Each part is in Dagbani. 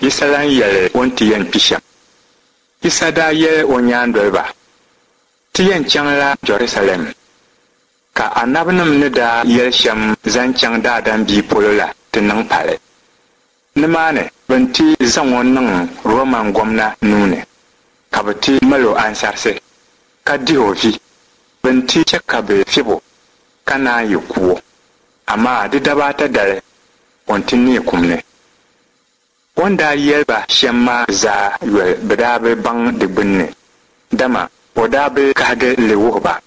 Yisa lan yɛli o ni ti yɛn kpi shɛm. Yisa daa yɛli o nyaandoliba, Ti yɛn chaŋla Jɛrusalɛm, ka anabinim ni daa yɛli shɛm zaŋ chaŋ Daadam Bia polo la ti niŋ pali. Nimaani bɛ ni ti zaŋ o niŋ Roman gomna nuu ni, ka bɛ ti mal o ansarisi, ka dih o vi. Bɛ ni ti chɛ ka bɛ fib o, ka naan yi ku o. Amaa di daba ata dali, o ni ti neei kum ni. O ni daa yɛli ba shɛm maa zaa yoli bɛ daa bi baŋ di gbinni, dama o daa bi kahigi li wuhi ba.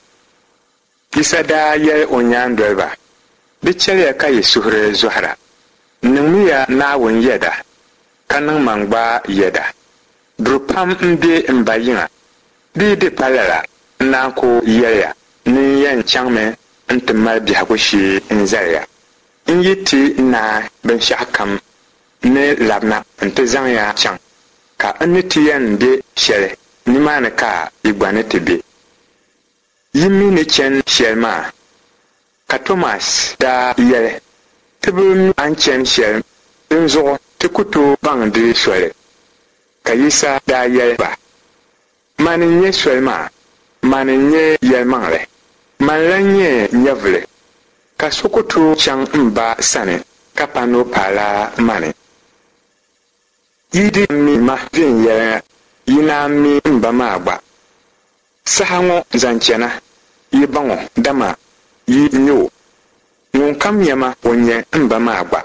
Yisa daa yɛli o nyaandoliba, Di chɛliya ka yi suhuri zɔhira. Niŋmiya Naawuni yɛda, ka niŋ man gba yɛda. Duri pam m-be m Ba yiŋa. Di yi di pa lala, n naan ku yɛli ya ni n yɛn chaŋmi nti mali biɛhigu shee n-zali ya. N yi ti naai binshɛɣukam, n ni labina nti zaŋ ya chaŋ, ka n ni ti yɛn be shɛli, nimaani ka yi gba ni ti be. Yi mi ni chani shɛli maa? Ka Tomas daa yɛli, Ti bi mi a ni chani shɛli, dinzuɣu ti ku tooi baŋ di soli. Ka Yisa daa yɛli ba, Mani n-nyɛ soli maa, mani n-nyɛ yɛlimaŋli, mani lan nyɛ nyɛvili, ka so ku tooi chaŋ m Ba sani ka pa ni o paala mani. Yi di mi ma viɛnyɛliŋga, yi naan mi m Ba maa gba. Saha ŋɔ zaŋ chana, yi baŋ o, dama yi nya o. Ŋunkam nya ma, o nya m Ba maa gba.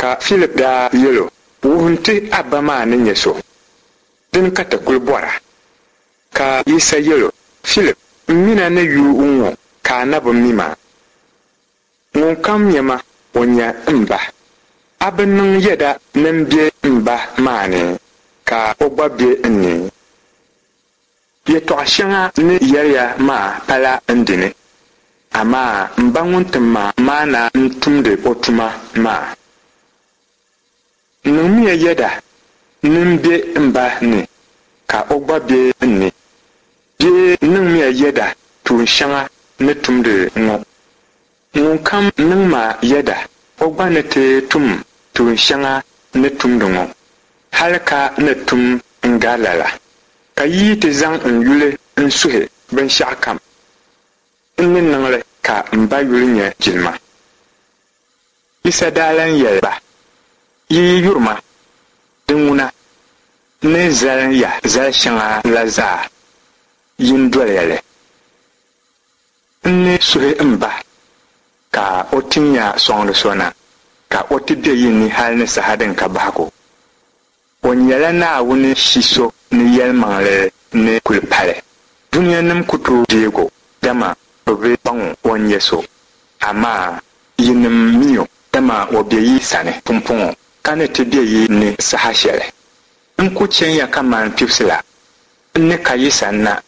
Ka Filip daa yɛl o, Wuhim ti a Ba maa ni nyɛ so, dini ka ti kul bɔra. Ka Yisa yɛl o, Filip, m min a ni yu ŋ-ŋɔ ka a na bi mi ma? Ŋunkam nya ma, o nya m Ba. A bi niŋ yɛda ni m be m Ba maa ni, ka o gba be n ni? Yɛtɔɣ shɛŋa n ni yɛri ya maa pala n dini, amaa m Ba ŋun tim ma maa na n-tumdi o tuma maa. Niŋmiya yɛda ni m be m Ba ni, ka o gba be n ni. Bee niŋmiya yɛda tuun shɛŋa n ni tumdi ŋɔ. Ŋunkam niŋ ma yɛda, o gba ni ti tum tuun shɛŋa n ni tumdi ŋɔ, hal ka ni tum n-gari lala. Ka yi yi ti zaŋ n yuli n-suhi binshɛɣukam, n ni niŋ li ka m Ba yuli nya jilima. Yisa daa lan yɛli ba, Yi yi yuri ma, di ŋuna, n ni zali ya zal shɛŋa la zaa, yin doliya li. N ni suhi m Ba ka o tin ya sɔŋdi so na, ka o ti be yi ni hal ni saha din ka bahigu. O nyɛla Naawuni Shi so ni yɛlimaŋli ni kul pali. Dunianim ku tooi deeg o, dama bɛ bi baŋ o ni nyɛ so. Amaa yinim mi o, dama o be yi sani pumpɔŋɔ, ka ni ti be yi ni saha shɛli. N ku chɛn ya kaman kpibisi la, n ni ka yi sanna.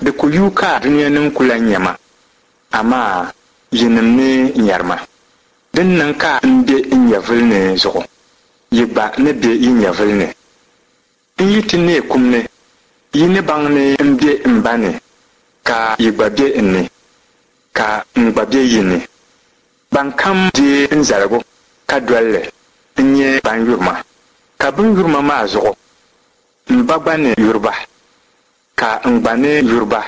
Di ku yuui ka dunianim ku lan nya ma, amaa yinim ni nyari ma. Din niŋ ka m be n nyɛvili ni zuɣu, yi gba ni be yi nyɛvili ni. N yi ti neei kum ni, yi ni baŋ ni m be m Ba ni, ka yi gba be n ni, ka n gba be yi ni. Bankam deei n zaligu ka doli li n-nyɛ ban yuri ma, ka bɛ ni yuri ma maa zuɣu, m Ba gba ni yuri ba. Ka n gba ni yuri ba,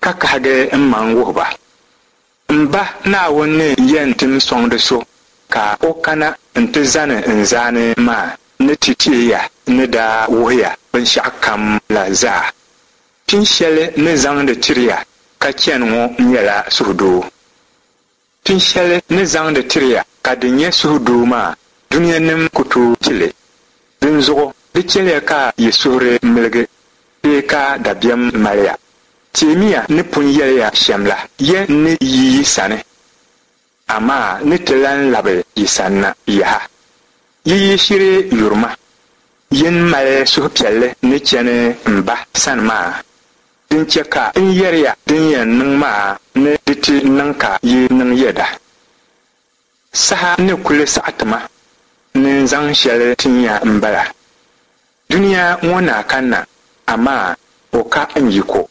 ka kahigi m maŋ wuhi ba. M Ba Naawuni ni yɛn tim sɔŋdi so ka o kana nti zani n zaani maa ni ti teei ya n ni daa wuhi ya binshɛɣukam la zaa. Pin shɛli n ni zaŋdi tiri ya ka chani ŋɔ nyɛla suhudoo. Pin shɛli n ni zaŋdi tiri ya ka di nyɛ suhudoo maa, dunianim ku tooi ti li. Dinzuɣu di chɛliya ka yi suhuri miligi bee ka dabiɛm mali ya. Teemiya n ni pun yɛli ya shɛm la, ya ni yi yi sani, amaa n ni ti lan labi yi sanna yaha. Yi yi shiri yuri ma, yin mali suhupiɛlli ni chani m Ba sani maa. Din chɛ ka n yɛri ya din yɛn niŋ maa ni di ti niŋ ka yi niŋ yɛda. Saha ni kuli saɣi ti ma ni n zaŋ shɛli tin ya m-bala. Dunia ŋɔ na kanna, amaa o ka n yiko.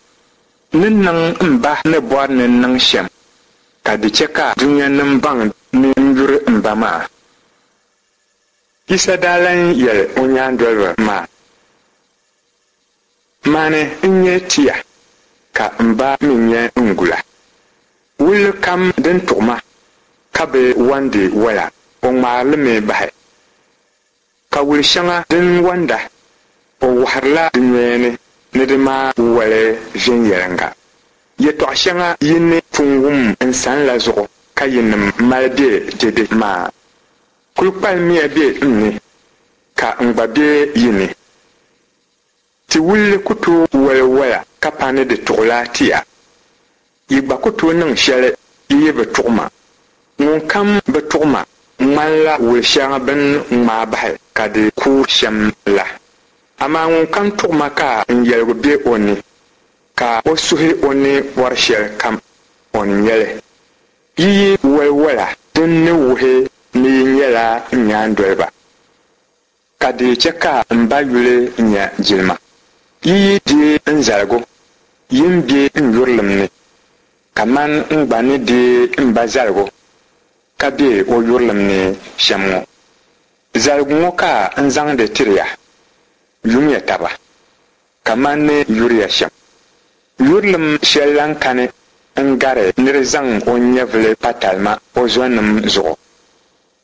N ni niŋ m Ba ni bɔri ni n niŋ shɛm, ka di chɛ ka dunianim baŋ ni n yuri m Ba maa. Yisa daa lan yɛl o nyaandoliba maa, Mani n-nyɛ tia, ka m Ba mi nyɛ n gula. Wulli kam din tuɣi ma ka bi wandi wala, o ŋmaari li mi bahi. Ka wul shɛŋa din wanda, o wɔhirila di nyoya ni ni di maa wali viɛnyɛliŋga. Yɛtɔɣ shɛŋa yi ni pun wum n san la zuɣu ka yinim mali be dɛde maa. Kul kpalimmiya be n ni, ka n gba be yi ni. Ti wulli ku tooi wali wala ka pa ni di tuɣila tia. Yi gba ku tooi niŋ shɛli yi yi bi tuɣi ma. Ŋunkam bi tuɣi ma ŋmanila wul shɛŋa bɛ ni ŋmaai bahi ka di kuui shɛm la. Amaa ŋunkam tuɣi ma ka n yɛligu be o ni, ka o suhi o ni bɔri shɛlikam, o ni nya li. Yi yi wali wala din ni wuhi ni yi nyɛla n nyaandoliba. Ka di chɛ ka m Ba yuli nya jilima. Yi yi deei n zaligu, yi ni be n yurilim ni, kaman n gba ni deei m Ba zaligu ka be o yurilim ni shɛm ŋɔ. Zaligu ŋɔ ka n zaŋdi tiri ya, Yumiya taba kaman n ni yuri ya shɛm. Yurilim shɛli lan kani n-gari nir zaŋ o nyɛvili pa talima o zɔnim zuɣu.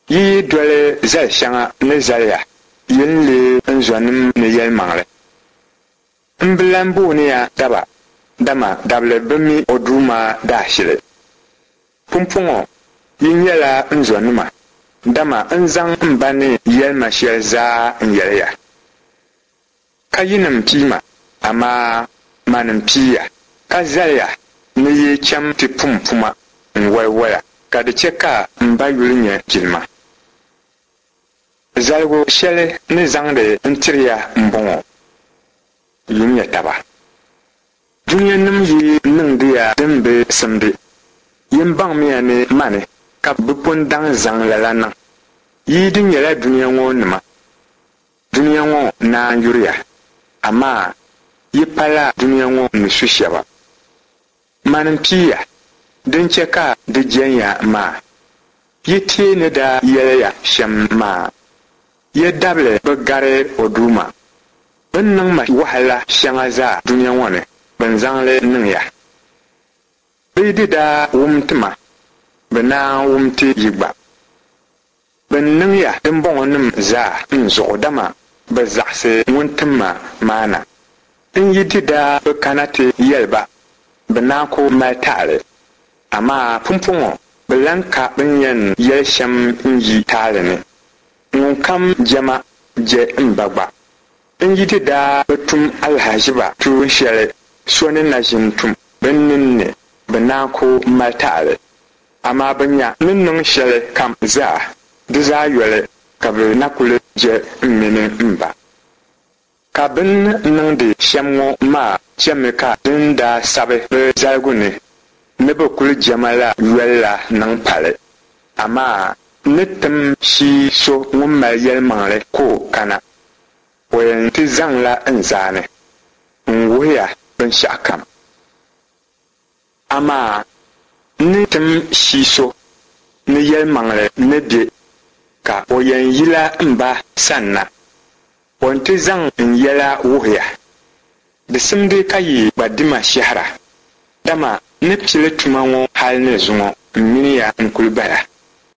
Yi yi doli zal shɛŋa n ni zali ya, yi ni leei n zɔnim ni yɛlimaŋli. M bi lan booni ya daba, dama dabili bi mi o duuma daashili. Pumpɔŋɔ yi nyɛla n zɔnima, dama n zaŋ m Ba ni yɛli ma shɛli zaa n-yɛli ya. Ka yinim pii ma, amaa mani m-pii ya, ka zali ya ni yi cham ti pum puma n-wali wala, ka di chɛ ka m Ba yuli nya jilima. Zaligu shɛli n ni zaŋdi n-tiri ya m-bɔŋɔ, Yumiya taba. Dunianim yi niŋdi ya din bi simdi, yin baŋmiya ni mani ka bɛ pun daŋ zaŋ lala niŋ. Yi di nyɛla dunia ŋɔ nima, Dunia ŋɔ naan yuri ya, amaa yi pala dunia ŋɔ ni su shɛba. Mani m-pii ya, din chɛ ka di jɛn ya maa. Yi teei ni daa yɛli ya shɛm maa, Yi dabili bi gari o duuma. Bɛ ni niŋ ma wahala shɛŋa zaa dunia ŋɔ ni, bɛ ni zaŋ li niŋ ya. Bɛ yi di daa wum ti ma, bɛ naan wum ti yi gba. Bɛ ni niŋ ya dimbɔŋɔnim zaa n zuɣu, dama bɛ zaɣisi ŋun tim ma maa na. N yi di daa bi kana ti yɛli ba, bɛ naan ku mali taali. Amaa pumpɔŋɔ bɛ lan ka bɛ ni yɛn yɛli shɛm n-yi taali ni. Ŋunkam je ma, je m Ba gba. N yi di daa bi tum alahiziba tuun shɛli so ni na ʒin tum bɛ nini ni, bɛ naan ku mali taali. Amaa bɛ nya ni niŋ shɛli kam zaa, di zaa yoli ka bɛ na kuli je m mini m Ba. Ka bɛ ni niŋdi shɛm ŋɔ maa chɛmi ka din daa sabi bɛ zaligu ni ni bɛ kuli je ma la yoli la niŋ pali. Amaa n ni tim shii so ŋun mali yɛlimaŋli ka o kana. O yɛn ti zaŋla n zaani n-wuhi ya binshɛɣukam. Amaa n ni tim shii so ni yɛlimaŋli ni be, ka o yɛn yila m Ba sanna. O ni ti zaŋ n yɛla wuhi ya. Di simdi ka yi gba di ma shɛhira, dama n ni pili tuma ŋɔ hal ni zuŋɔ m mini ya n-kul bala.